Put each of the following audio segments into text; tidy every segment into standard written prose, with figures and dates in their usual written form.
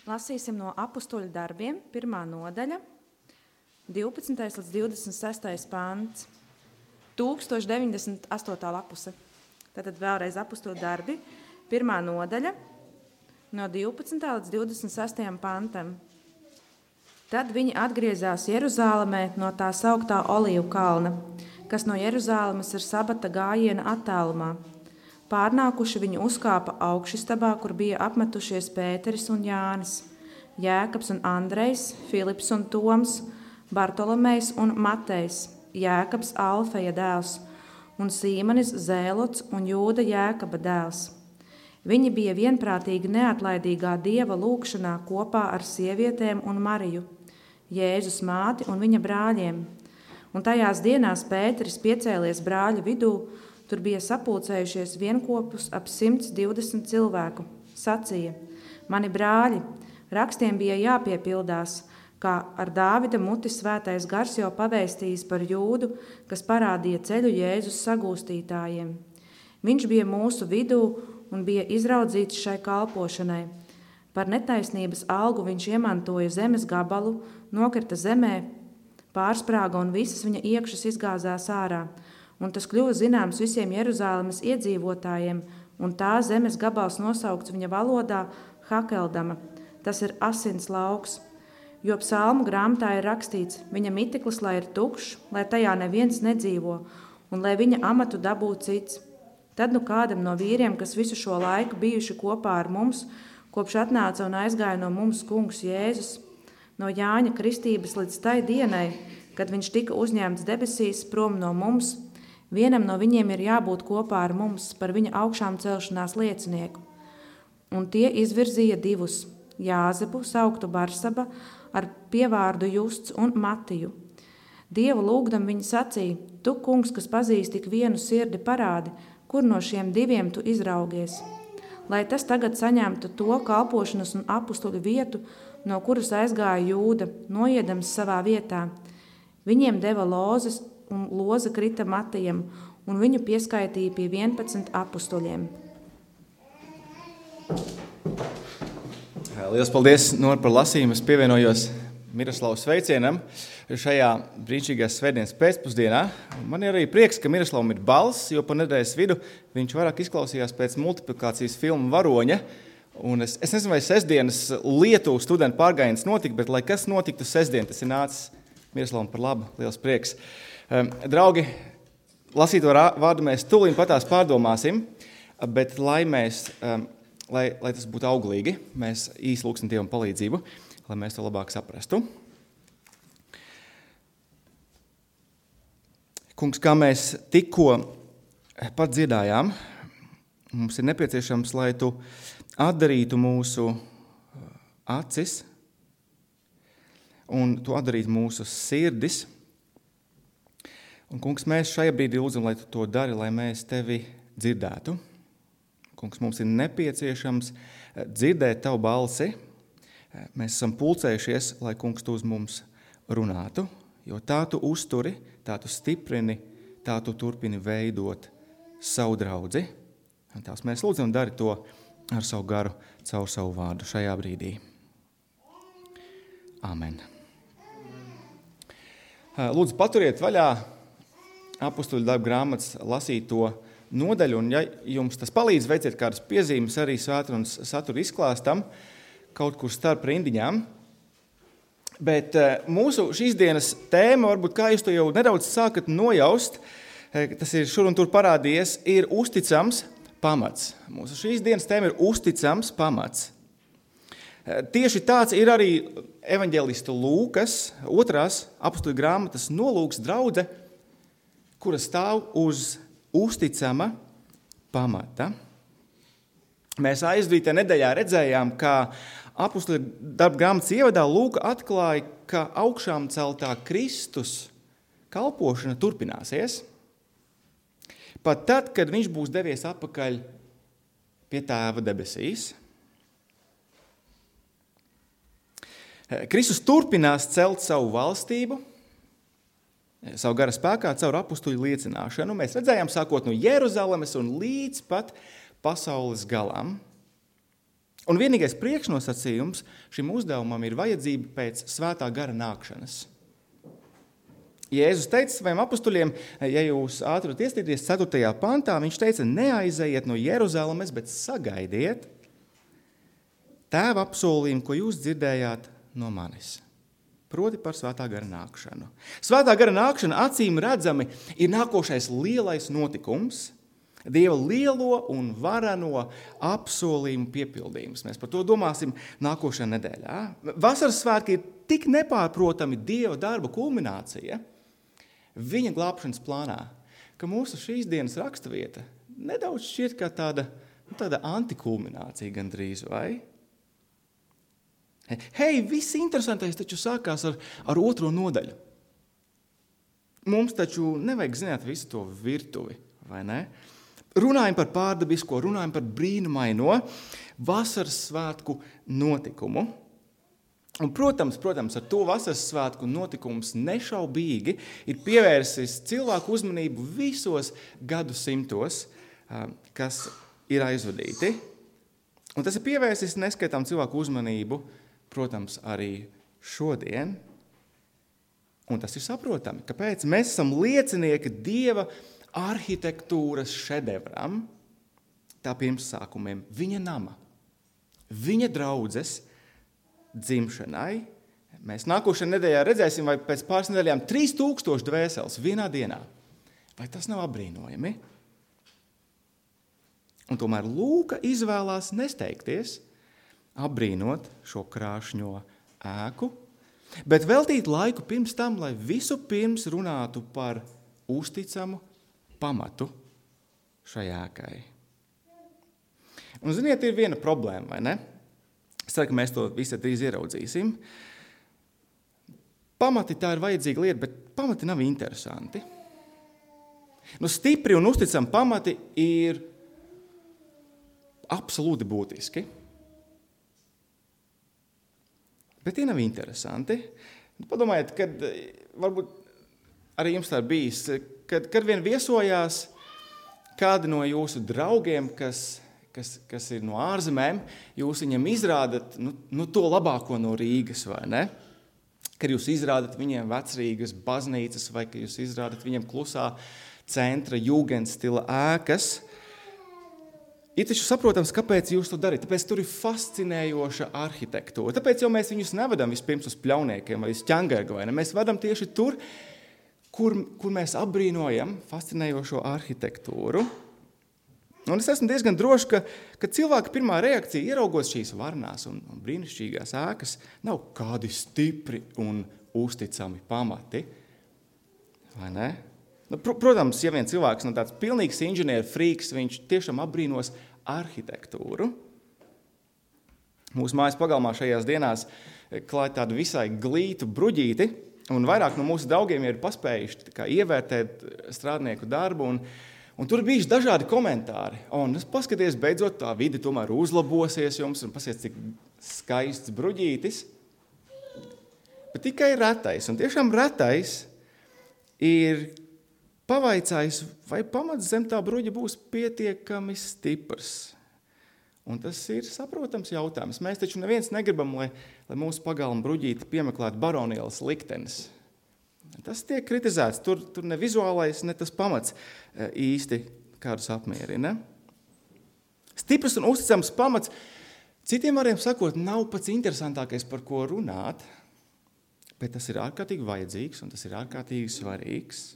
Lasīsim no Apustuļu darbiem, 1. nodaļa, 12. līdz 26. pants, 1098. lapuse. Tātad vēlreiz Apustuļu darbi, 1. nodaļa, no 12. līdz 26. pantam. Tad viņi atgriezās Jeruzālemē no tā sauktā Olīvu kalna, kas no Jeruzālemes ir sabata gājiena attālumā. Pārnākuši viņi uzkāpa augšistabā, kur bija apmetušies Pēteris un Jānis, Jēkabs un Andrejs, Filips un Toms, Bartolomejs un Matejs, Jēkabs Alfeja dēls un Sīmanis Zēlots un Jūda Jēkaba dēls. Viņi bija vienprātīgi neatlaidīgā Dieva lūgšanā kopā ar sievietēm un Mariju, Jēzus māti un viņa brāļiem. Un tajās dienās Pēteris piecēlies brāļu vidū, tur bija sapulcējušies vienkopus ap 120 cilvēku. Sacīja: Mani brāļi, rakstiem bija jāpiepildās, kā ar Dāvida muti svētais gars jau pavēstījis par Jūdu, kas parādīja ceļu Jēzus sagūstītājiem. Viņš bija mūsu vidū un bija izraudzīts šai kalpošanai. Par netaisnības algu viņš iemantoja zemes gabalu, nokrita zemē, pārsprāga un visas viņa iekšas izgāzās ārā. Un tas kļuva zināms visiem Jeruzālemes iedzīvotājiem, un tā zemes gabals nosaukts viņa valodā Hakeldama. Tas ir asins lauks, jo psalmu grāmatā ir rakstīts: viņa miteklis, lai ir tukšs, lai tajā neviens nedzīvo, un lai viņa amatu dabū cits. Tad nu kādam no vīriem, kas visu šo laiku bijuši kopā ar mums, kopš atnāca un aizgāja no mums kungs Jēzus, no Jāņa kristības līdz tai dienai, kad viņš tika uzņemts debesīs prom no mums, vienam no viņiem ir jābūt kopā ar mums par viņa augšām celšanās liecinieku. Un tie izvirzīja divus, Jāzepu, sauktu Barsaba, ar pievārdu Justs un Matiju. Dievu lūgdam viņi sacīja: Tu, kungs, kas pazīst tik vienu sirdi, parādi, kur no šiem diviem tu izraugies. Lai tas tagad saņemtu to kalpošanas un apustuļu vietu, no kuras aizgāja Jūda, noiedams savā vietā. Viņiem deva lozes, un loza krita Matijam, un viņu pieskaitīja pie 11 apustuļiem. Lielas paldies, Nora, par lasījumu. Es pievienojos Miroslavas sveicienam šajā brīnišķīgās svētdienas pēcpusdienā. Man ir arī prieks, ka Miroslavam ir balss, jo pa nedēļas vidu viņš vairāk izklausījās pēc multiplikācijas filmu Varoņa. Un es nezinu, vai sestdienas Lietuvu studentu pārgājiens notika, bet lai kas notiktu sestdien, tas ir nācis Miroslavam par labu. Liels prieks. Draugi, lasīto vārdu mēs tūlīt patās pārdomāsim, bet lai tas būtu auglīgi, mēs īsi lūgsim Dievam palīdzību, lai mēs to labāk saprastu. Kungs, kā mēs tikko pat dziedājām, mums ir nepieciešams, lai tu atdarītu mūsu acis un tu atdarītu mūsu sirdis. Un, kungs, mēs šajā brīdī lūdzam, lai tu to dari, lai mēs tevi dzirdētu. Kungs, mums ir nepieciešams dzirdēt tavu balsi. Mēs esam pulcējušies, lai, kungs, tu uz mums runātu, jo tā tu uzturi, tā tu stiprini, tā tu turpini veidot savu draudzi. Un tās mēs lūdzam, dari to ar savu garu, caur savu vārdu šajā brīdī. Amen. Lūdzu, paturiet vaļā Apustuļu darbu grāmatas lasīto nodaļu, un ja jums tas palīdz, veiciet kādas piezīmes arī svētrunas satura izklāstam, kaut kur starp rindiņām. Bet mūsu šīs dienas tēma, varbūt kā jūs to jau nedaudz sākat nojaust, tas ir šur un tur parādījies, ir uzticams pamats. Mūsu šīs dienas tēma ir uzticams pamats. Tieši tāds ir arī evaņģelistu Lūkas, 2. apustuļu grāmatas nolūks draudze, kura stāv uz uzticama pamata. Mēs aizdītā nedēļā redzējām, ka apustuļu darba grāmatas ievadā Lūka atklāja, ka augšām celtā Kristus kalpošana turpināsies, pat tad, kad viņš būs devies atpakaļ pie Tēva debesīs. Kristus turpinās celt savu valstību, savu gara spēkā caur apustuļu liecināšanu. Mēs redzējām, sākot no Jeruzalemes un līdz pat pasaules galam. Un vienīgais priekšnosacījums šim uzdevumam ir vajadzība pēc svētā gara nākšanas. Jēzus teica saviem apustuļiem, ja jūs ātri ieskatīties 4. pantā, viņš teica, neaizejiet no Jeruzalemes, bet sagaidiet Tēva apsolījumu, ko jūs dzirdējāt no manis. Proti par svētā gara nākšanu. Svētā gara nākšana acīm redzami ir nākošais lielais notikums, Dieva lielo un varano apsolījumu piepildījums. Mēs par to domāsim nākošajā nedēļā. Vasaras svētki ir tik nepārprotami Dieva darba kulminācija viņa glābšanas plānā, ka mūsu šīs dienas raksturvieta nedaudz šķiet kā tāda antikulminācija gandrīz, vai? Hei, viss interesantais taču sākās ar 2. nodaļu. Mums taču nevajag zināt visu to virtuvi, vai ne? Runājam par pārdabisko, runājam par brīnumaino vasaras svētku notikumu. Un, protams, ar to vasaras svētku notikums nešaubīgi ir pievērsis cilvēku uzmanību visos gadsimtos, kas ir aizvadīti. Un tas ir pievērsis neskaitām cilvēku uzmanību, protams, arī šodien. Un tas ir saprotami, kāpēc mēs esam liecinieki Dieva arhitektūras šedevram, tā pirmsākumiem, viņa nama, viņa draudzes dzimšanai. Mēs nākošajā nedēļā redzēsim, vai pēc pāris nedēļām 3000 dvēseles vienā dienā. Vai tas nav apbrīnojami? Un tomēr Lūka izvēlās nesteigties, apbrīnot šo krāšņo ēku, bet veltīt laiku pirms tam, lai visu pirms runātu par uzticamu pamatu šai ēkai. Un, ziniet, ir viena problēma, vai ne? Es ceru, ka mēs to visu drīz ieraudzīsim. Pamati tā ir vajadzīga lieta, bet pamati nav interesanti. Stipri un uzticami pamati ir absolūti būtiski. Bet tie nav interesanti. Padomājiet, kad varbūt arī jums tā bijis, kad vien viesojās kādi no jūsu draugiem, kas ir no ārzemēm, jūs viņiem izrādat to labāko no Rīgas, vai ne? Kad jūs izrādat viņiem vecrīgas baznīcas, vai kad jūs izrādat viņiem klusā centra jūgendstila ēkas, ir taču saprotams, kāpēc jūs to darīt. Tāpēc tur ir fascinējoša arhitektūra. Tāpēc jau mēs viņus nevedam vispirms uz Pļauniekiem vai uz Ķangargu, vai ne? Mēs vedam tieši tur, kur mēs apbrīnojam fascinējošo arhitektūru. Un es esmu diezgan drošs, ka cilvēka pirmā reakcija, ieraugot šīs varnās un brīnišķīgās ēkas, nav kādi stipri un uzticami pamati. Vai ne? Protams, ja vien cilvēks tāds pilnīgs inženieru frīks, viņš tiešām apbrīnos arhitektūru. Mūsu mājas pagalmā šajās dienās klāj tādu visai glītu bruģīti, un vairāk no mūsu draugiem ir paspējuši ievērtēt strādnieku darbu, un tur ir bijuši dažādi komentāri. Un paskaties, beidzot tā vide tomēr uzlabosies jums, un paskaties, cik skaists bruģītis. Bet tikai retais, un tiešām retais ir pavaicājis, vai pamats zem tā bruģa būs pietiekami stiprs. Un tas ir saprotams jautājums. Mēs taču neviens negribam, lai mūsu pagalma bruģīti piemeklētu baronielas liktenes. Tas tiek kritizēts. Tur ne vizuālais, ne tas pamats īsti kādus apmierina. Stiprs un uzticams pamats, citiem vārdiem sakot, nav pats interesantākais, par ko runāt, bet tas ir ārkārtīgi vajadzīgs un tas ir ārkārtīgi svarīgs.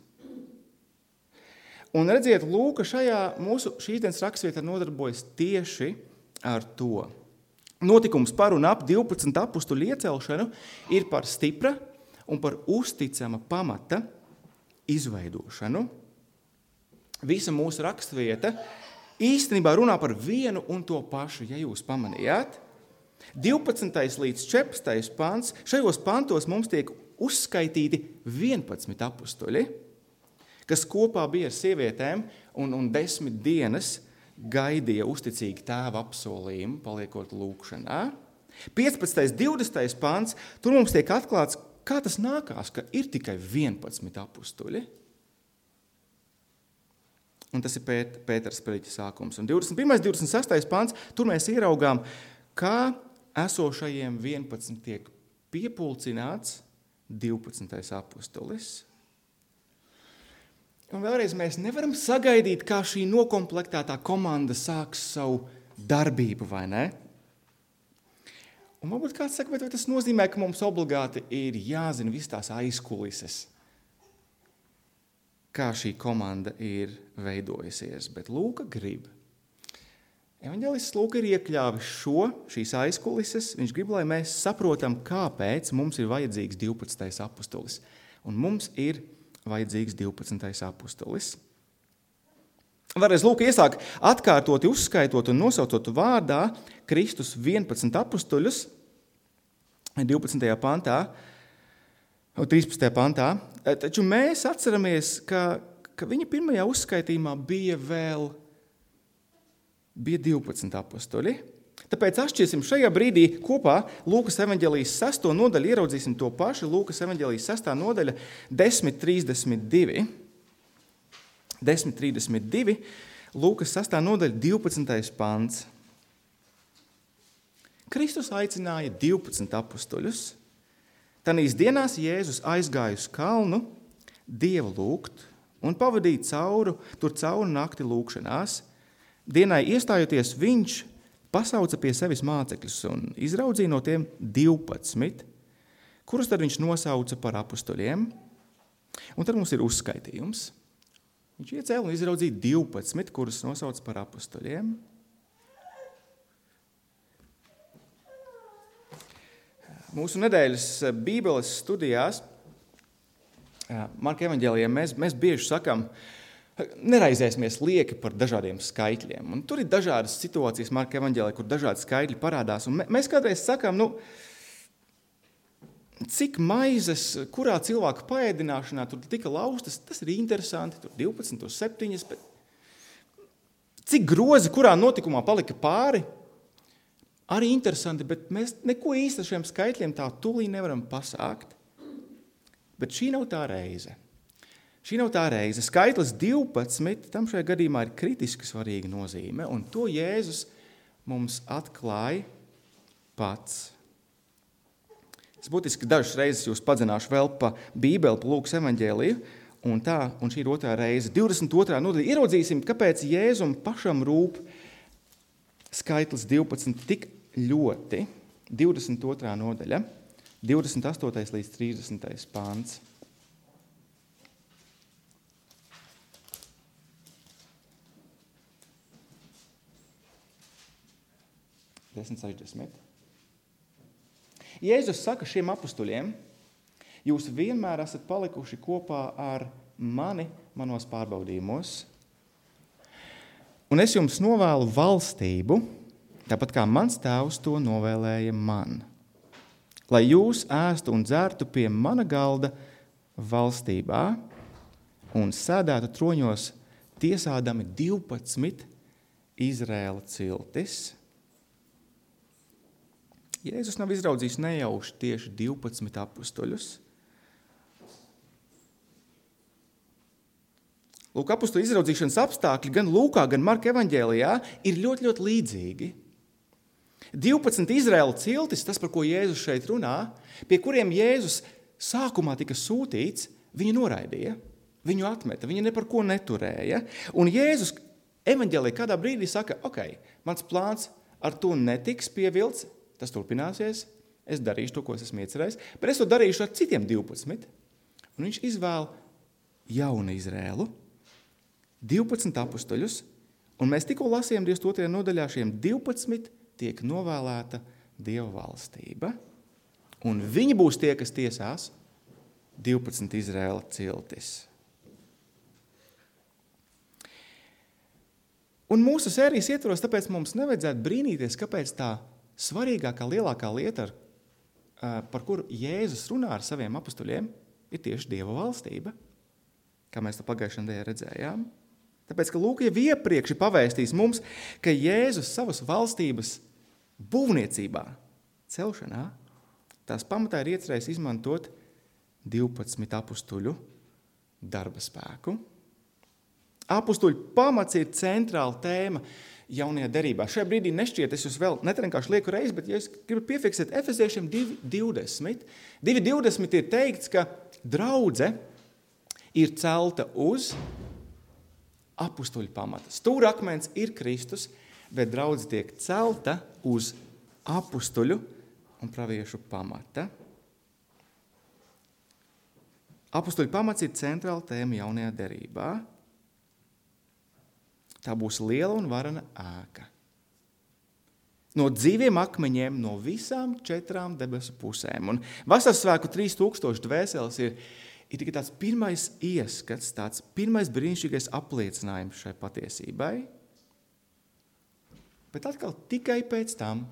Un redziet, Lūka šajā mūsu šīs dienas rakstvietā nodarbojas tieši ar to. Notikums par un ap 12 apustuļu iecelšanu ir par stipra un par uzticama pamata izveidošanu. Visa mūsu rakstvieta īstenībā runā par vienu un to pašu, ja jūs pamanījāt. 12. līdz 14. pants, šajos pantos mums tiek uzskaitīti 11 apustuļi, kas kopā bija ar sievietēm un 10 dienas gaidīja uzticīgi tēva apsolījumu, paliekot lūkšanā. 15. 20. pants, tur mums tiek atklāts, kā tas nākās, ka ir tikai 11 apustuļi. Un tas ir Pētera sprediķa sākums. Un 21. 26. pants, tur mēs ieraugām, kā esošajiem 11 tiek piepulcināts 12. apustulis. Un vēlreiz mēs nevaram sagaidīt, kā šī nokomplektētā komanda sāks savu darbību, vai ne? Un varbūt kāds saka, bet vai tas nozīmē, ka mums obligāti ir jāzina viss tās aizkulises, kā šī komanda ir veidojusies. Bet Lūka grib. Evaņģēlists Lūka ir iekļāvis šīs aizkulises. Viņš grib, lai mēs saprotam, kāpēc mums ir vajadzīgs 12. apustulis. Un mums ir vajadzīgs 12. apustulis. Vēlreiz Lūka iesāk atkārtoti uzskaitot un nosaucot vārdā Kristus 11 apustuļus 12. pantā, 13. pantā. Taču mēs atceramies, ka viņa pirmajā uzskaitījumā bija 12 apustuļi. Tāpēc atšķirsim šajā brīdī kopā Lūkas evaņģēlijas 6. nodaļu, ieraudzīsim to pašu, Lūkas evaņģēlijas 6. nodaļa 10.32. 10.32, Lūkas 6. nodaļa 12. pants. Kristus aicināja 12 apustuļus. Tanīs dienās Jēzus aizgāja uz kalnu Dievu lūgt un pavadīja tur cauri nakti lūgšanās. Dienai iestājoties viņš pasauca pie sevis mācekļus un izraudzīja no tiem 12, kurus tad viņš nosauca par apustuļiem. Un tad mums ir uzskaitījums. Viņš iecēla un izraudzīja 12, kurus nosauca par apustuļiem. Mūsu nedēļas Bībeles studijās Marka evaņģēlijā mēs bieži sakam, neraizēsimies lieki par dažādiem skaitļiem. Un tur ir dažādas situācijas Marka evaņģēlijā, kur dažādi skaitļi parādās. Un mēs kādreiz sakam, cik maizes, kurā cilvēka paēdināšanā tur tika laustas, tas ir interesanti, tur 12, tur 7, bet cik grozi, kurā notikumā palika pāri, arī interesanti, bet mēs neko īsti ar šiem skaitļiem tā tūlī nevaram pasākt. Bet šī nav tā reize. Šī nav tā reize. Skaitlis 12, tam šajā gadījumā ir kritiski svarīga nozīme, un to Jēzus mums atklāja pats. Es būtiski dažas reizes jūs padzināšu vēl pa Bībeli, pa Lūkas evaņģēliju, un šī ir otrā reize. 22. nodaļa. Ieraudzīsim, kāpēc Jēzum pašam rūp skaitlis 12 tik ļoti. 22. nodaļa, 28. līdz 30. pāns. Jēzus saka šiem apustuļiem, jūs vienmēr esat palikuši kopā ar mani manos pārbaudījumos, un es jums novēlu valstību, tāpat kā mans tēvs to novēlēja man, lai jūs ēstu un dzertu pie mana galda valstībā un sēdētu troņos tiesādami 12 Izraēla ciltis. Jēzus nav izraudzījis nejauši tieši 12 apustuļus. Lūk, apustuļu izraudzīšanas apstākļi gan Lūkā, gan Marka evaņģēlijā ir ļoti, ļoti līdzīgi. 12 Izraēla ciltis, tas, par ko Jēzus šeit runā, pie kuriem Jēzus sākumā tika sūtīts, viņu noraidīja, viņu atmeta, viņu ne par ko neturēja. Un Jēzus evaņģēlijā kādā brīdī saka, mans plāns ar to netiks pievilts, tas turpināsies, es darīšu to, ko es esmu iecerējis, bet es to darīšu ar citiem 12. Un viņš izvēl jaunu Izrēlu, 12 apustuļus, un mēs tikko lasījām 22. nodaļā šiem 12 tiek novēlēta Dieva valstība, un viņi būs tie, kas tiesās 12 Izrēla ciltis. Un mūsu sērijas ietvaros, tāpēc mums nevajadzētu brīnīties, kāpēc tā svarīgākā, lielākā lieta, par kuru Jēzus runā ar saviem apustuļiem, ir tieši Dieva valstība, kā mēs to pagājušajā nedēļā redzējām. Tāpēc, ka Lūka jau iepriekš ir pavēstījis mums, ka Jēzus savas valstības būvniecībā, celšanā, tās pamatā ir iecerējis izmantot 12 apustuļu darba spēku. Apustuļu pamats ir centrāla tēma jaunajā derībā. Šajā brīdī nešķiet, es jūs vēl netrenkārši lieku reizi, bet ja es gribu piefiksēt Efeziešiem 2.20. 2.20 ir teikts, ka draudze ir celta uz apustuļu pamata. Stūrakmens ir Kristus, bet draudze tiek celta uz apustuļu un praviešu pamata. Apustuļu pamats ir centrāla tēma jaunajā derībā. Tā būs liela un varana ēka. No dzīviem akmeņiem no visām 4 debesu pusēm. Un Vasarsvētku 3000 dvēseles ir tikai tāds pirmais ieskats, tāds pirmais brīnišķīgais apliecinājums šai patiesībai. Bet atkal tikai pēc tam,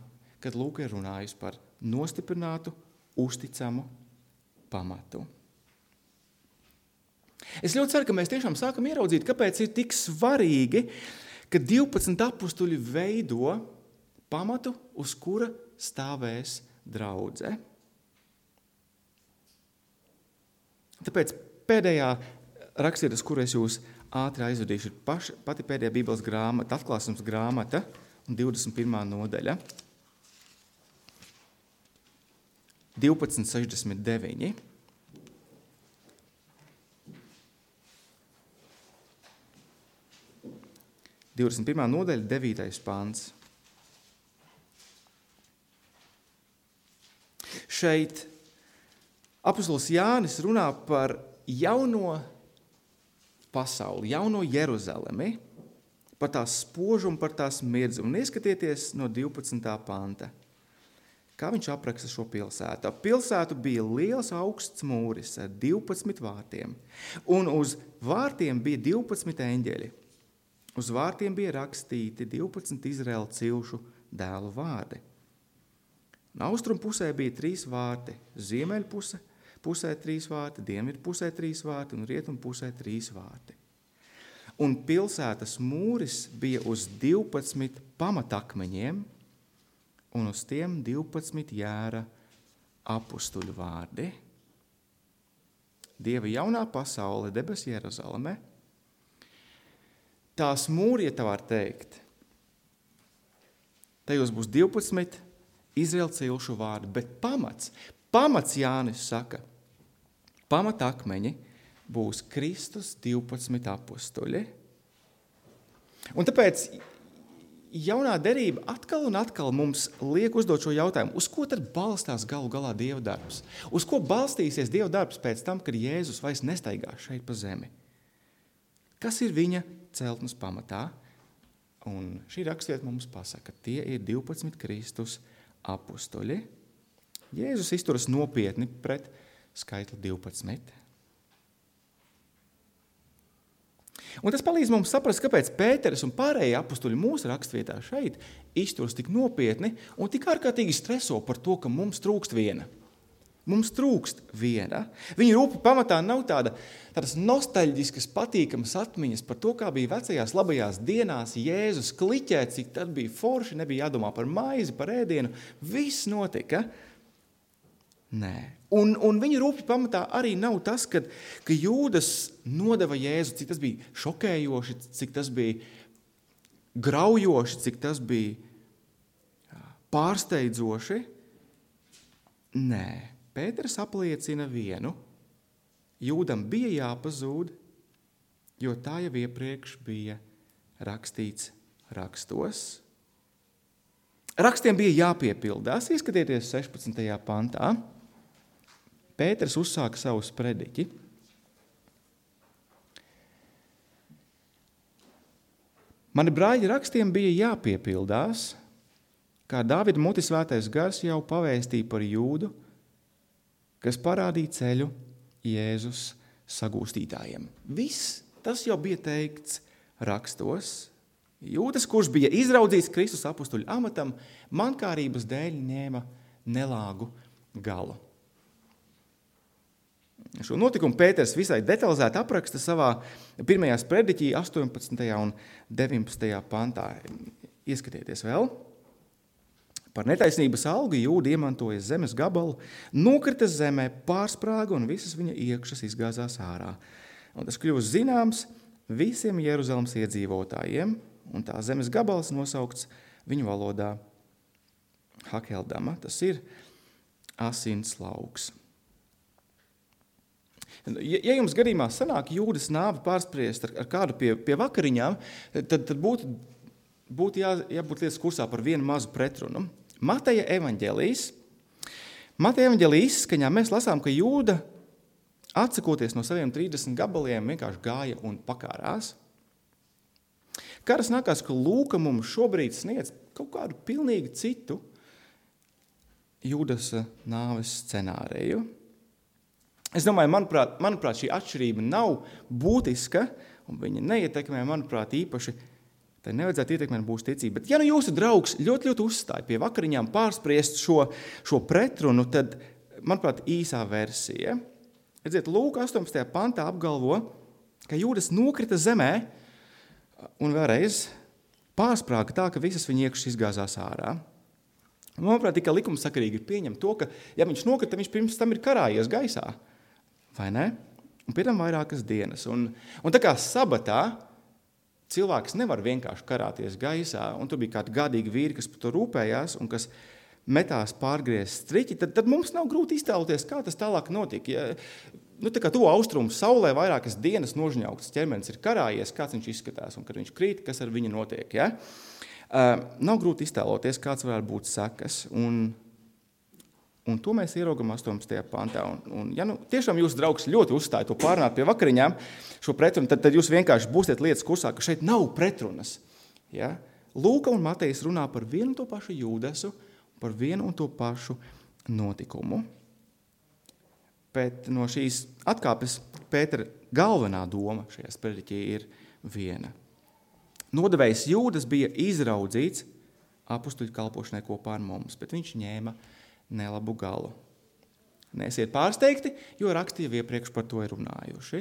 kad Lūka ir runājusi par nostiprinātu, uzticamu pamatu. Es ļoti ceru, ka mēs tiešām sākam ieraudzīt, kāpēc ir tik svarīgi, ka 12 apustuļi veido pamatu, uz kura stāvēs draudze. Tāpēc pēdējā rakstvieta, uz kuru es jūs ātri aizvedīšu, ir pati pēdējā Bībeles grāmata, Atklāsums grāmata, 21. nodaļa, 12.69. 21. nodaļa, 9. pants. Šeit apustulis Jānis runā par jauno pasauli, jauno Jeruzalemi, par tās spožumu, par tās mirdzumu. Un ieskatieties no 12. panta. Kā viņš apraksta šo pilsētu? Ap pilsētu bija liels augsts mūris ar 12 vārtiem, un uz vārtiem bija 12 eņģeļi. Uz vārtiem bija rakstīti 12 Izraēla cilšu dēlu vārdi. Austrumu pusē bija 3 vārti, ziemeļu pusē 3 vārti, dienvidu pusē 3 vārti un rietumu pusē 3 vārti. Un pilsētas mūris bija uz 12 pamatakmeņiem, un uz tiem 12 jēra apustuļu vārdi. Dieva jaunā pasaule, debes Jeruzaleme, tās mūri, ja tā var teikt, tajos būs 12 Izraēla cilšu vārdi, bet pamats Jānis saka, pamatakmeņi būs Kristus 12 apustuļi. Un tāpēc jaunā derība atkal un atkal mums liek uzdot šo jautājumu, uz ko tad balstās galu galā Dieva darbs? Uz ko balstīsies Dieva darbs pēc tam, kad Jēzus vairs nestaigā šeit pa zemi? Kas ir viņa celtnes pamatā? Un šī rakstvieta mums pasaka, tie ir 12 Kristus apustuļi. Jēzus izturas nopietni pret skaitli 12. Un tas palīdz mums saprast, kāpēc Pēteris un pārējie apustuļi mūsu rakstvietā šeit izturas tik nopietni un tik ārkārtīgi streso par to, ka mums trūkst viena. Mums trūkst viena. Viņa rūpa pamatā nav tādas nostalģiskas, patīkamas atmiņas par to, kā bija vecajās labajās dienās Jēzus kliķē, cik tad bija forši, nebija jādomā par maizi, par ēdienu. Viss notika. Nē. Un viņa rūpja pamatā arī nav tas, ka Jūdas nodeva Jēzu, cik tas bija šokējoši, cik tas bija graujoši, cik tas bija pārsteidzoši. Nē. Pēters apliecina vienu. Jūdam bija jāpazūd, jo tā jau iepriekš bija rakstīts rakstos. Rakstiem bija jāpiepildās. Ieskatieties 16. pantā. Pēters uzsāka savu sprediķi. Mani brāļi, rakstiem bija jāpiepildās, kā Dāvida muti svētais gars jau pavēstīja par Jūdu, kas parādīja ceļu Jēzus sagūstītājiem. Viss tas jau bija teikts rakstos. Jūdas, kurš bija izraudzīts Kristus apustuļu amatam, mankārības dēļ ņēma nelāgu galu. Šo notikumu Pēters visai detalizēti apraksta savā pirmajā sprediķī 18. un 19. pantā. Ieskatieties vēl. Par netaisnības algu Jūda iemantoja zemes gabalu, nokrita zemē, pārsprāga un visas viņa iekšas izgāzās ārā. Un tas kļuva zināms visiem Jeruzalemes iedzīvotājiem, un tā zemes gabals nosaukts viņu valodā Hakeldama. Tas ir asins lauks. Ja jums gadījumā sanāk Jūdas nāvi pārspriest ar kādu pie vakariņām, tad būtu jābūt lietas kursā par vienu mazu pretrunu. Mateja evaņģēlijs izskaņā mēs lasām, ka Jūda, atsakoties no saviem 30 gabaliem, vienkārši gāja un pakārās. Kādas nākās, ka Lūka mums šobrīd sniedz kaut kādu pilnīgi citu Jūdas nāves scenāriju. Es domāju, manuprāt, šī atšķirība nav būtiska, un viņa neietekmē, manuprāt, īpaši, tai nevajadzētu ietekmēt būs ticība. Bet ja jūsu draugs ļoti uzstāja pie vakariņām pārspriest šo pretrunu, tad, manuprāt, īsā versija. Redziet, Lūka 18. pantā apgalvo, ka Jūdas nokrita zemē un vēlreiz pārsprāga tā, ka visas viņa iekšas izgāzās ārā. Manuprāt, tikai likumsakarīgi ir pieņemt to, ka, ja viņš nokrita, viņš pirms tam ir karājies gaisā. Vai ne? Un pie tam vairākas dienas. Un tā kā sabatā cilvēks nevar vienkārši karāties gaisā, un tur bija kādi gadīgi vīri, kas par to rūpējās un kas metās pārgriezt striķi, tad mums nav grūti iztēloties, kā tas tālāk notika. Ja, tā kā to austrumu saulē vairākas dienas nožņaukts ķermenis ir karājies, kāds viņš izskatās, un kad viņš krīt, kas ar viņu notiek. Ja? Nav grūti iztēloties, kāds varētu būt sekas, un to mēs ieraugam 18. pantā. Un ja tiešām jūsu draugs ļoti uzstāja to pārnāt pie vakariņām, šo pretrunu, tad jūs vienkārši būsiet lietas kursā, ka šeit nav pretrunas. Ja? Lūka un Matejs runā par vienu un to pašu Jūdasu, par vienu un to pašu notikumu. Bet no šīs atkāpes Pētera galvenā doma šajā sprediķī ir viena. Nodevējs Jūdas bija izraudzīts apustuļu kalpošanai kopā ar mums, bet viņš ņēma nelabu galu. Neesiet pārsteigti, jo raksti jau iepriekš par to ir runājuši.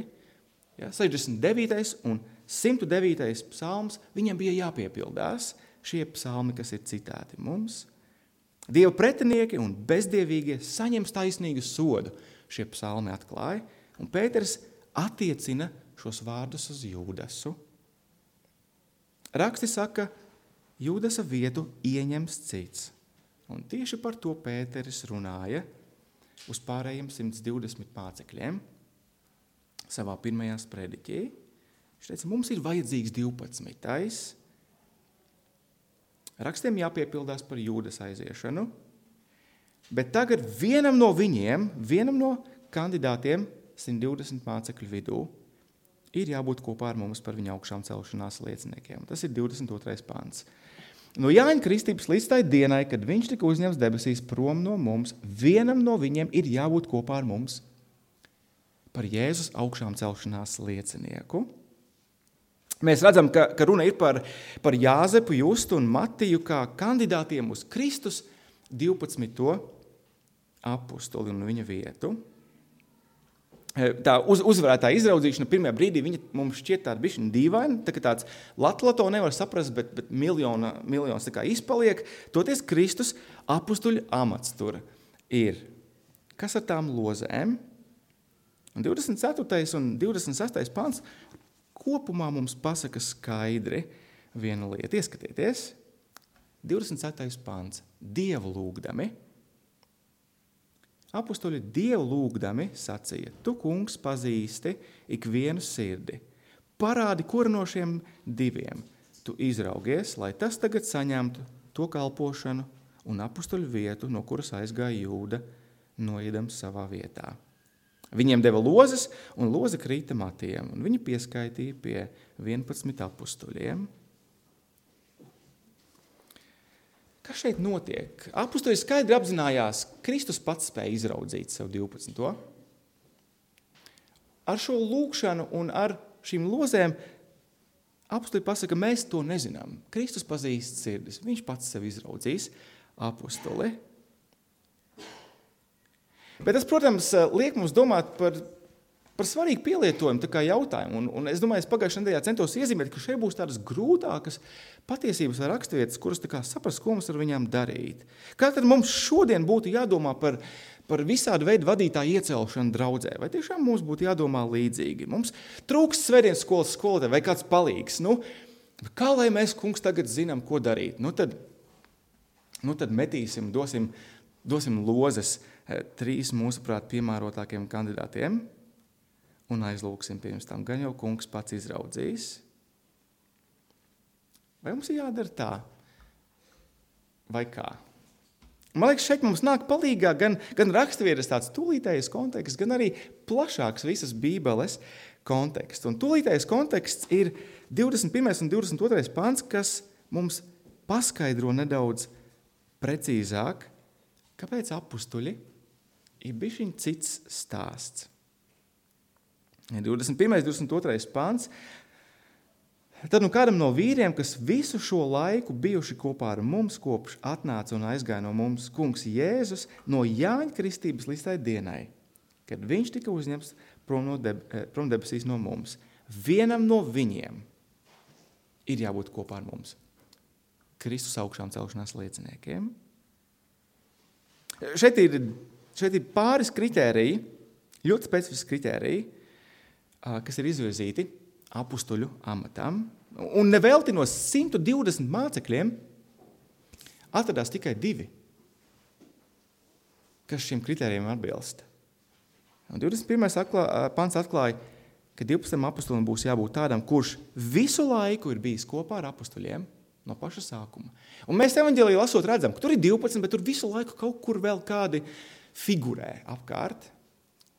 Ja, 69. un 109. psalms viņam bija jāpiepildās, šie psalmi, kas ir citāti mums. Dieva pretinieki un bezdievīgie saņems taisnīgu sodu, šie psalmi atklāja, un Pēters attiecina šos vārdus uz Jūdasu. Raksti saka, Jūdasa vietu ieņems cits. Un tieši par to Pēteris runāja uz pārējiem 120 mācekļiem savā pirmajā sprediķī. Viņš teica, mums ir vajadzīgs 12. Rakstiem jāpiepildās par Jūdas aiziešanu, bet tagad vienam no kandidātiem 120 mācekļu vidū ir jābūt kopā ar mums par viņa augšām celšanās lieciniekiem. Tas ir 22. pants. No Jāņa kristības līdz tai dienai, kad viņš tika uzņemts debesīs prom no mums, vienam no viņiem ir jābūt kopā ar mums par Jēzus augšām celšanās liecinieku. Mēs redzam, ka runa ir par Jāzepu, Justu un Matiju kā kandidātiem uz Kristus 12. apustuli un viņa vietu. Tā uzvarētā izraudzīšana pirmajā brīdī viņa mums šķiet tāda bišķiņa dīvaina, tā kā tāds latlato nevar saprast, bet miljons tā kā izpaliek. Toties Kristus apustuļu amats tur ir. Kas ar tām lozēm? Un 24. un 26. pants kopumā mums pasaka skaidri vienu lietu. Ieskatieties, 27. pants. Dievu lūgdami. Apustuļi Dievu lūgdami sacīja, tu, kungs, pazīsti ikvienu sirdi. Parādi, kuru no šiem diviem tu izraugies, lai tas tagad saņemtu to kalpošanu un apustuļu vietu, no kuras aizgāja Jūda, noiedams savā vietā. Viņiem deva lozes, un loze krīta Matijam, un viņi pieskaitīja pie 11 apustuļiem. Kas šeit notiek? Apustuļi skaidri apzinājās, Kristus pats spēja izraudzīt sev 12. Ar šo lūgšanu un ar šīm lozēm apustuļi pasaka, mēs to nezinām. Kristus pazīst sirdis, viņš pats sev izraudzīs apustuli. Bet tas, protams, liek mums domāt par svarīgu pielietojumu, tā kā jautājumu. Un es domāju, es pagājušajā nedēļā centos iezīmēt, ka šeit būs tādas grūtākas patiesības vai raksturvietas, kuras tā kā saprast, ko mums ar viņām darīt. Kā tad mums šodien būtu jādomā par visādu veidu vadītāju iecelšanu draudzē? Vai tiešām mums būtu jādomā līdzīgi? Mums trūkst svētdienas skolas skolotāji vai kāds palīgs. Kā lai mēs, kungs, tagad zinām, ko darīt? Nu tad metīsim, dosim lozes 3 mūsuprāt piemērotākiem kandidātiem un aizlūksim pirms tam. Gan jau kungs pats izraudzīs. Vai mums ir jādara tā? Vai kā? Man liekas, šeit mums nāk palīgā gan raksturvietas tāds tūlītējs konteksts, gan arī plašāks visas Bībeles konteksts. Un tūlītējs konteksts ir 21. un 22. pants, kas mums paskaidro nedaudz precīzāk, kāpēc apustuļi ir bišķiņ cits stāsts. 21. 22. pants. Tad kādam no vīriem, kas visu šo laiku bijuši kopā ar mums, kopš atnāca un aizgāja no mums kungs Jēzus no Jāņa kristības līdz tai dienai, kad viņš tika uzņemts prom debesīs no mums. Vienam no viņiem ir jābūt kopā ar mums. Kristus augšām celšanās lieciniekiem. Šeit ir pāris kritēriji, ļoti specifiski kritēriji, kas ir izvirzīti apustuļu amatam. Un nevelti no 120 mācekļiem atradās tikai 2, kas šiem kritērijiem atbilst. Un 21. pants atklāja, ka 12 apustulim būs jābūt tādam, kurš visu laiku ir bijis kopā ar apustuļiem no paša sākuma. Un mēs evaņģēlijā lasot redzam, ka tur ir 12, bet tur visu laiku kaut kur vēl kādi figurē apkārt.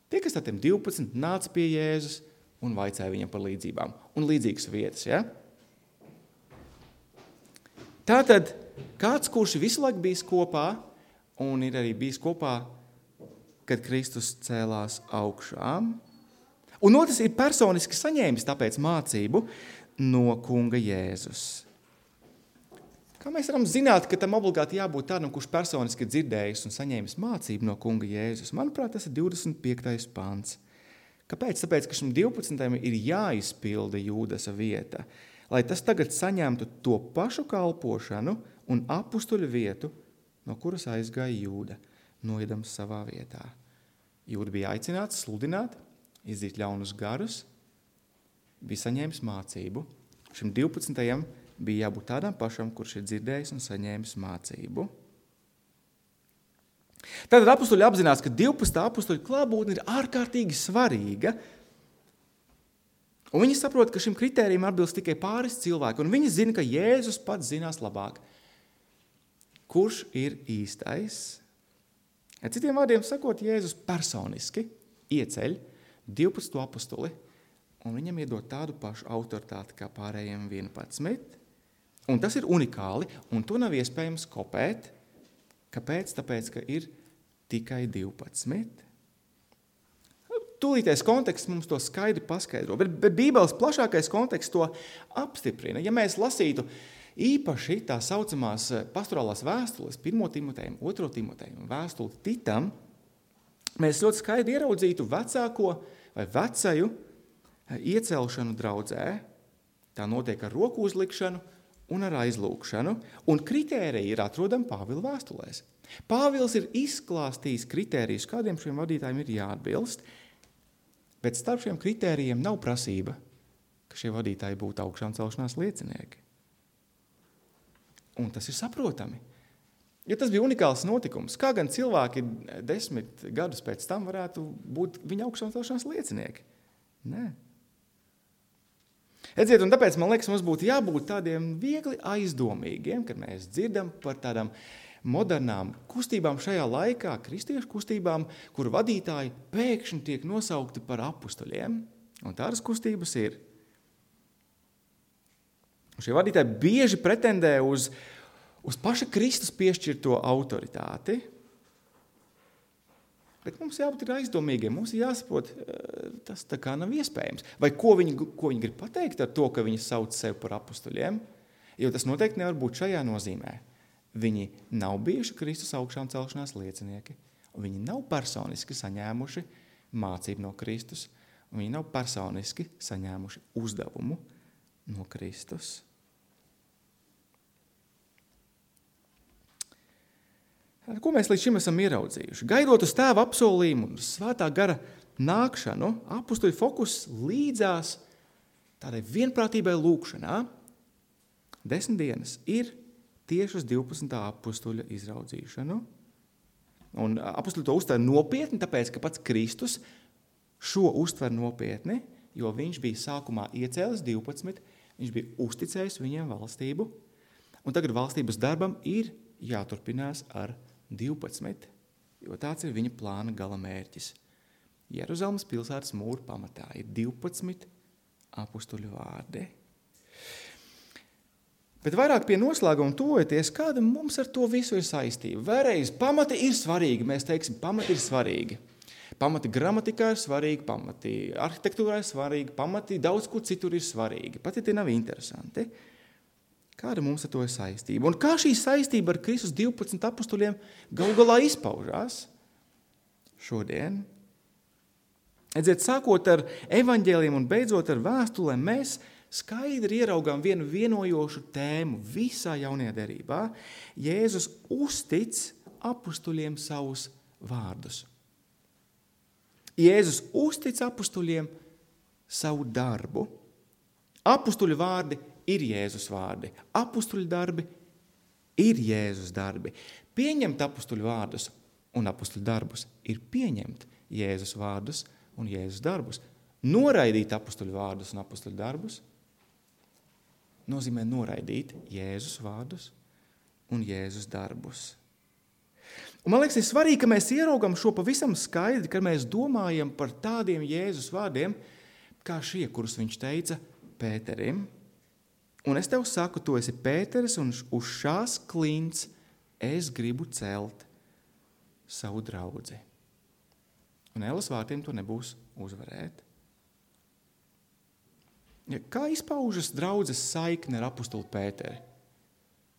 Tie, kas tādiem 12 nāca pie Jēzus un vaicāja viņam par līdzībām un līdzīgas vietas. Ja? Tātad kāds, kurš visu laiku bijis kopā un ir arī bijis kopā, kad Kristus cēlās augšām. Un otrs ir personiski saņēmis tāpēc mācību no kunga Jēzus. Kā mēs varam zināt, ka tam obligāti jābūt tādam, kurš personiski dzirdējis un saņēmis mācību no kunga Jēzus? Manuprāt, tas ir 25. pants. Kāpēc? Tāpēc, ka šim 12. ir jāizpilda Jūdasa vieta, lai tas tagad saņemtu to pašu kalpošanu un apustuļu vietu, no kuras aizgāja Jūda, noiedams savā vietā. Jūda bija aicināts sludināt, izdzīt ļaunus garus, bija saņēmis mācību. Šim 12. bija jābūt tādam pašam, kurš ir dzirdējis un saņēmis mācību. Tātad apustuļi apzinās, ka 12. apustuļu klātbūtne ir ārkārtīgi svarīga, un viņi saprot, ka šim kritērijam atbilst tikai pāris cilvēki, un viņi zina, ka Jēzus pats zinās labāk, kurš ir īstais. Citiem vārdiem sakot, Jēzus personiski ieceļ 12 apustuli, un viņam iedod tādu pašu autoritāti kā pārējiem 11. Un tas ir unikāli, un to nav iespējams kopēt. Kāpēc? Tāpēc, ka ir tikai 12. Tūlītais konteksts mums to skaidri paskaidro, bet Bībeles plašākais konteksts to apstiprina. Ja mēs lasītu īpaši tā saucamās pastorālās vēstules, 1. Timotejam, 2. Timotejam un vēstuli Titam, mēs ļoti skaidri ieraudzītu vecāko vai vecaju iecelšanu draudzē. Tā notiek ar roku uzlikšanu un ar aizlūkšanu, un kritēriji ir atrodami Pāvila vēstulēs. Pāvils ir izklāstījis kritērijus, kādiem šiem vadītājiem ir jāatbilst, bet starp šiem kritērijiem nav prasība, ka šie vadītāji būtu augšām celšanās liecinieki. Un tas ir saprotami, jo tas bija unikāls notikums. Kā gan cilvēki 10 gadus pēc tam varētu būt viņa augšām celšanās liecinieki? Nē. Redziet, un tāpēc, man liekas, mums būtu jābūt tādiem viegli aizdomīgiem, kad mēs dzirdam par tādām modernām kustībām šajā laikā, kristiešu kustībām, kur vadītāji pēkšņi tiek nosaukti par apustuļiem. Un tādas kustības ir. Šie vadītāji bieži pretendē uz paša Kristus piešķirto autoritāti. Bet mums jābūt aizdomīgiem, mums ir jāsaprot, tas tā kā nav iespējams. Vai ko viņi grib pateikt ar to, ka viņi sauc sevi par apustuļiem? Jo tas noteikti nevar būt šajā nozīmē. Viņi nav bijuši Kristus augšām celšanās liecinieki. Viņi nav personiski saņēmuši mācību no Kristus. Viņi nav personiski saņēmuši uzdevumu no Kristus. Ko mēs līdz šim esam ieraudzījuši? Gaidot uz tēva apsolījumu un svētā gara nākšanu, apustuļu fokus līdzās tādai vienprātībai lūkšanā 10 dienas ir tieši uz 12. apustuļa izraudzīšanu. Un apustuļi to uztver nopietni, tāpēc, ka pats Kristus šo uztver nopietni, jo viņš bija sākumā iecēlis 12, viņš bija uzticējis viņiem valstību, un tagad valstības darbam ir jāturpinās ar 12, jo tāds ir viņa plāna gala mērķis. Jeruzalemes pilsētas mūra pamatā ir 12 apustuļu vārdi. Bet vairāk pie noslēguma tuvojoties, kāda mums ar to visu ir saistība. Vēlreiz, pamati ir svarīgi, mēs teiksim, pamati ir svarīgi. Pamati gramatikā ir svarīgi, pamati arhitektūrā ir svarīgi, pamati daudz kur citur ir svarīgi. Pat ja tie nav interesanti. Kāda mums ar to ir saistība? Un kā šī saistība ar Kristus 12 apustuļiem galu galā izpaužās šodien? Redziet, sākot ar evaņģēliem un beidzot ar vēstulēm, mēs skaidri ieraugām vienu vienojošu tēmu visā jaunajā derībā. Jēzus uztic apustuļiem savus vārdus. Jēzus uztic apustuļiem savu darbu. Apustuļu vārdi ir Jēzus vārdi. Apustuļu darbi ir Jēzus darbi. Pieņemt apustuļu vārdus un apustuļu darbus ir pieņemt Jēzus vārdus un Jēzus darbus. Noraidīt apustuļu vārdus un apustuļu darbus nozīmē noraidīt Jēzus vārdus un Jēzus darbus. Un man liekas, ir svarīgi, ka mēs ieraugam šo pavisam skaidri, kad mēs domājam par tādiem Jēzus vārdiem, kā šie, kurus viņš teica Pēterim. Un es tev saku, tu esi Pēteris, un uz šās klints es gribu celt savu draudzi. Un ēlas vārtiem to nebūs uzvarēt. Kā izpaužas draudzes saikne ar apustuli Pēteri?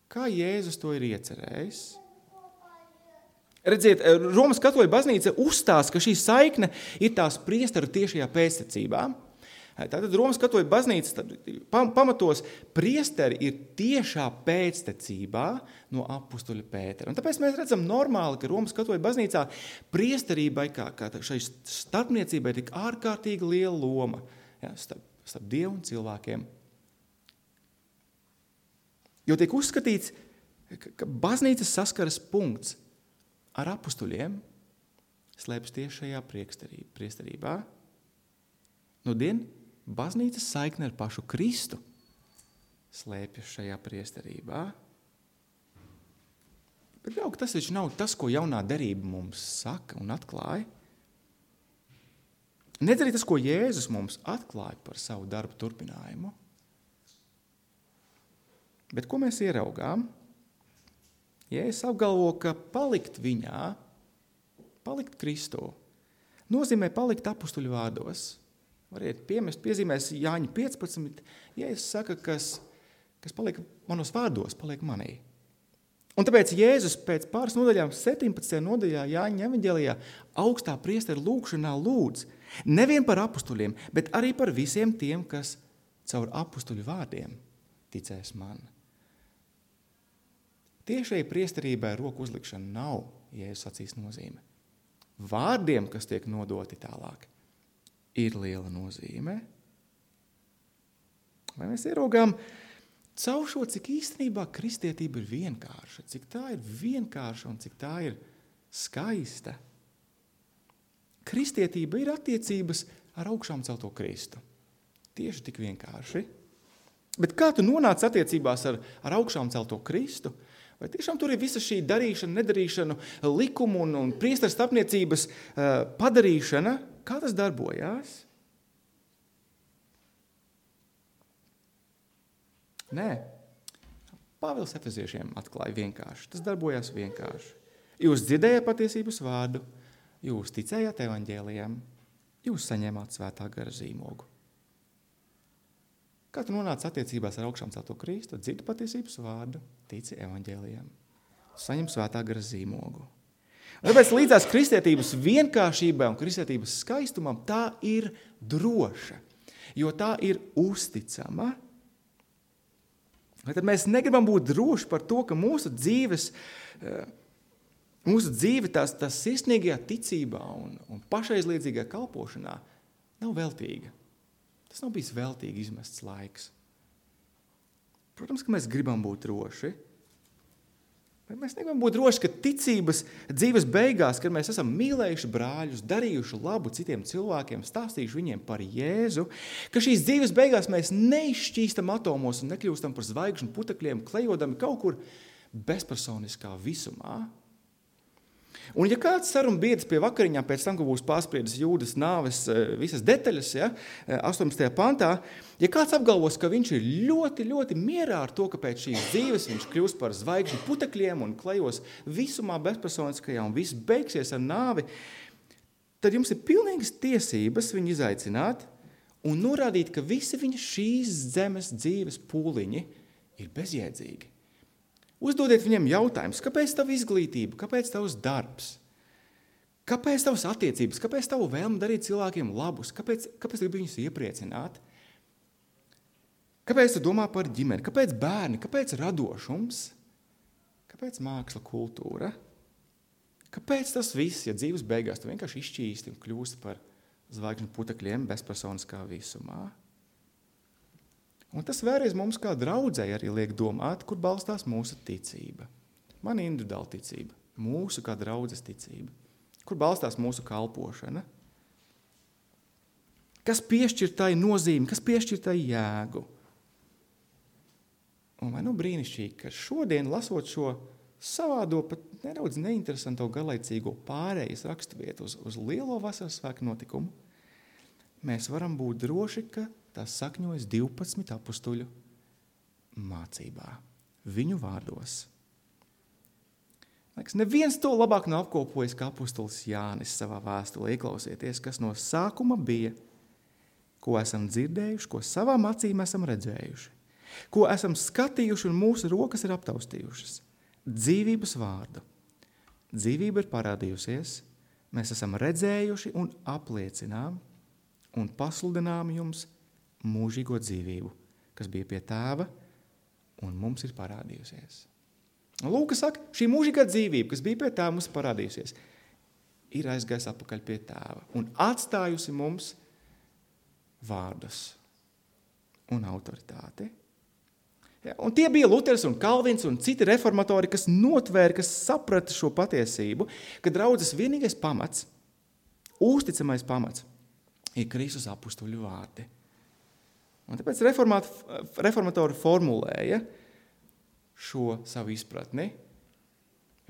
Kā Jēzus to ir iecerējis? Redziet, Romas katoļu baznīca uzstāsta, ka šī saikne ir tās priesteru tiešajā pēctecībā. Tātad Romas katoļu baznīca pamatos priesteri ir tiešā pēctecībā no apustuļa Pētera. Un tāpēc mēs redzam normāli, ka Romas katoļu baznīcā priesterībai, kā šai starpniecībai, tik ārkārtīgi liela loma, ja, starp Dievu un cilvēkiem. Jo tiek uzskatīts, ka baznīcas saskaras punkts ar apustuļiem slēpjas tieši šajā priesterībā. Nudien baznīcas saikne ar pašu Kristu slēpjas šajā priesterībā. Bet jau, tas taču nav tas, ko jaunā derība mums saka un atklāja. Nedz arī tas, ko Jēzus mums atklāja par savu darbu turpinājumu. Bet ko mēs ieraugām? Jēzus apgalvo, ka palikt viņā, palikt Kristū, nozīmē palikt apustuļu vārdos. Variet piemest, piezīmēs Jāņa 15. Jēzus saka, kas paliek manos vārdos, paliek manī. Un tāpēc Jēzus pēc pāris nodaļām, 17. nodaļā Jāņa evaņģēlijā, augstā priestera lūgšanā lūdz nevien par apustuļiem, bet arī par visiem tiem, kas caur apustuļu vārdiem ticēs man. Tiešai priesterībai roku uzlikšana nav Jēzus acīs nozīme. Vārdiem, kas tiek nodoti tālāk, ir liela nozīme. Vai mēs ieraugām caur šo, cik īstenībā kristietība ir vienkārša, cik tā ir vienkārša un cik tā ir skaista. Kristietība ir attiecības ar augšām celto Kristu. Tieši tik vienkārši. Bet kā tu nonāc attiecībās ar augšām celto Kristu? Vai tiešām tur ir visa šī darīšana, nedarīšana, likumu un priesteru starpniecības padarīšana? Kā tas darbojās? Nē. Pāvils Efeziešiem atklāja vienkārši. Tas darbojās vienkārši. Jūs dzirdējāt patiesības vārdu, jūs ticējāt evaņģēlijam, jūs saņēmāt svētā gara zīmogu. Kā tu nonāc attiecībās ar augšām celto Kristu, dzirdi patiesības vārdu, tici evaņģēlijam, saņem svētā gara zīmogu. Un tāpēc līdzās kristietības vienkāršībai un kristietības skaistumam tā ir droša, jo tā ir uzticama. Vai tad mēs negribam būt droši par to, ka mūsu dzīve tās sirsnīgajā ticībā un pašaizliedzīgajā kalpošanā nav veltīga. Tas nav bijis veltīgi izmests laiks. Protams, ka mēs gribam būt droši. Bet mēs negribam būt droši, ka ticības dzīves beigās, kad mēs esam mīlējuši brāļus, darījuši labu citiem cilvēkiem, stāstījuši viņiem par Jēzu, ka šīs dzīves beigās mēs neizšķīstam atomos un nekļūstam par zvaigžņu putekļiem, klejodami kaut kur bezpersoniskā visumā. Un ja kāds saruna biedrs pie vakariņām pēc tam, ka būs pārspriedis Jūdas nāves visas detaļas, 18. pantā, ja kāds apgalvos, ka viņš ir ļoti, ļoti mierā ar to, ka pēc šīs dzīves viņš kļūst par zvaigžņu putekļiem un klejos visumā bezpersoniskajā un viss beigsies ar nāvi, tad jums ir pilnīgas tiesības viņu izaicināt un norādīt, ka visi viņa šīs zemes dzīves pūliņi ir bezjēdzīgi. Uzdodiet viņiem jautājumus, kāpēc tava izglītība, kāpēc tavs darbs, kāpēc tavas attiecības, kāpēc tavu vēlmi darīt cilvēkiem labus, kāpēc gribi viņus iepriecināt, kāpēc tu domā par ģimeni, kāpēc bērni, kāpēc radošums, kāpēc māksla kultūra, kāpēc tas viss, ja dzīves beigās tu vienkārši izšķīsti un kļūsti par zvaigžņu putekļiem bezpersoniskā visumā. Un tas vēlreiz mums kā draudzei arī liek domāt, kur balstās mūsu ticība. Man individuāla ticība, mūsu kā draudzes ticība. Kur balstās mūsu kalpošana. Kas piešķir tai nozīmi, kas piešķir tai jēgu. Un vai brīnišķīgi, ka šodien lasot šo savādo, pat nedaudz neinteresanto garlaicīgo pārējas raksturvietu uz lielo vasaras svētku notikumu, mēs varam būt droši, ka tās sakņojas 12 apustuļu mācībā, viņu vārdos. Neviens to labāk nav apkopojis kā apustulis Jānis savā vēstulē. Ieklausieties, kas no sākuma bija, ko esam dzirdējuši, ko savām acīm esam redzējuši, ko esam skatījuši un mūsu rokas ir aptaustījušas. Dzīvības vārdu. Dzīvība ir parādījusies, mēs esam redzējuši un apliecinām un pasludinām jums mūžīgo dzīvību, kas bija pie tēva un mums ir parādījusies. Un Lūka saka, šī mūžīgā dzīvība, kas bija pie tēva mums parādījusies, ir aizgājis atpakaļ pie tēva un atstājusi mums vārdus un autoritāti. Ja, un tie bija Luters un Kalvins un citi reformatori, kas notvēra, kas saprata šo patiesību, ka draudzes vienīgais pamats, uzticamais pamats, ir Kristus apustuļu vārdi. Un tāpēc reformatori formulēja šo savu izpratni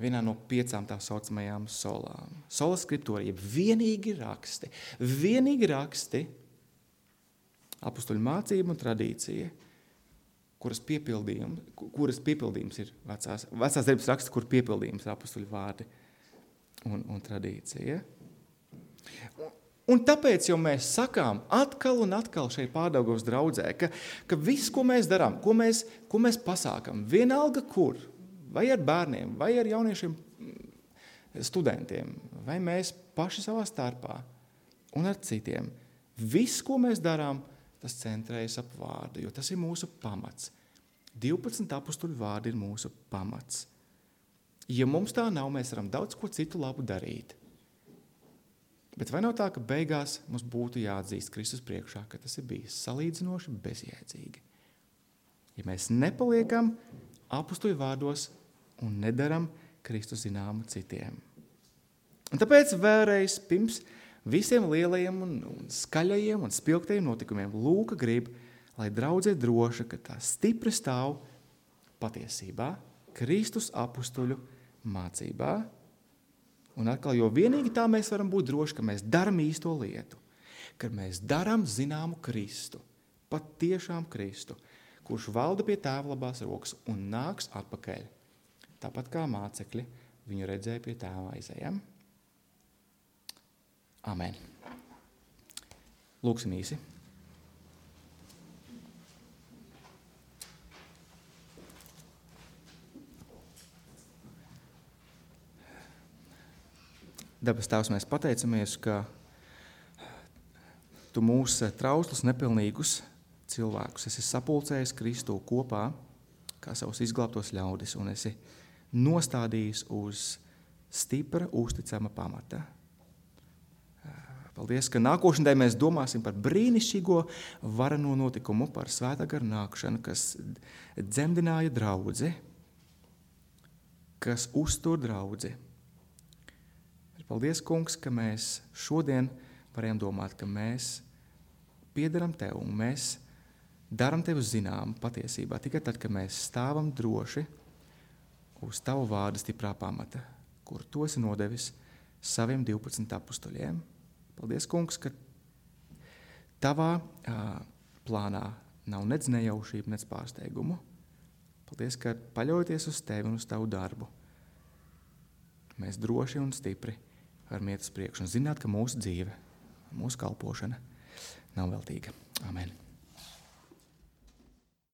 vienā no 5 tā saucamajām solām. Sola skriptūra, jeb vienīgi raksti, apustuļu mācība un tradīcija, kuras piepildījums ir vecās darbības raksts, kur piepildījums ir apustuļu vārdi un tradīcija. Un tāpēc jau mēs sakām atkal un atkal šeit Pārdaugavas draudzē, ka viss, ko mēs darām, ko mēs pasākam, vienalga kur, vai ar bērniem, vai ar jauniešiem studentiem, vai mēs paši savā starpā un ar citiem, viss, ko mēs darām, tas centrējas ap vārdu, jo tas ir mūsu pamats. 12 apustuļu vārdi ir mūsu pamats. Ja mums tā nav, mēs varam daudz ko citu labu darīt. Bet vai nav tā, ka beigās mums būtu jāatzīst Kristus priekšā, ka tas ir bijis salīdzinoši bezjēdzīgi? Ja mēs nepaliekam apustuļu vārdos un nedaram Kristus zināmu citiem. Un tāpēc vēlreiz pirms visiem lielajiem un skaļajiem un spilgtajiem notikumiem Lūka grib, lai draudze droša, ka tā stipri stāv patiesībā, Kristus apustuļu mācībā. Un atkal, jo vienīgi tā mēs varam būt droši, ka mēs daram īsto lietu, ka mēs daram zināmu Kristu, pat tiešām Kristu, kurš valda pie tēva labās rokas un nāks atpakaļ. Tāpat kā mācekļi viņu redzēja pie tēva aizejam. Amen. Lūksim īsi. Debes Tēvs, mēs pateicamies, ka Tu mūs trauslus, nepilnīgus cilvēkus esi sapulcējis Kristu kopā kā savus izglābtos ļaudis un esi nostādījis uz stipra, uzticama pamata. Paldies, ka nākošanai mēs domāsim par brīnišķīgo vareno notikumu, par Svētā gara nākšanu, kas dzemdināja draudzi, kas uztur draudzi. Paldies, kungs, ka mēs šodien varējām domāt, ka mēs piederam tev un mēs daram tev zinām patiesībā tikai tad, kad mēs stāvam droši uz tavu vārdu stiprā pamata, kur tu esi nodevis saviem 12 apustuļiem. Paldies, kungs, ka tavā plānā nav nec nejaušība, nec pārsteigumu. Paldies, ka paļaujoties uz tevi un uz tavu darbu, mēs droši un stipri varam iet uz priekšu un zināt, ka mūsu dzīve, mūsu kalpošana nav veltīga. Amen.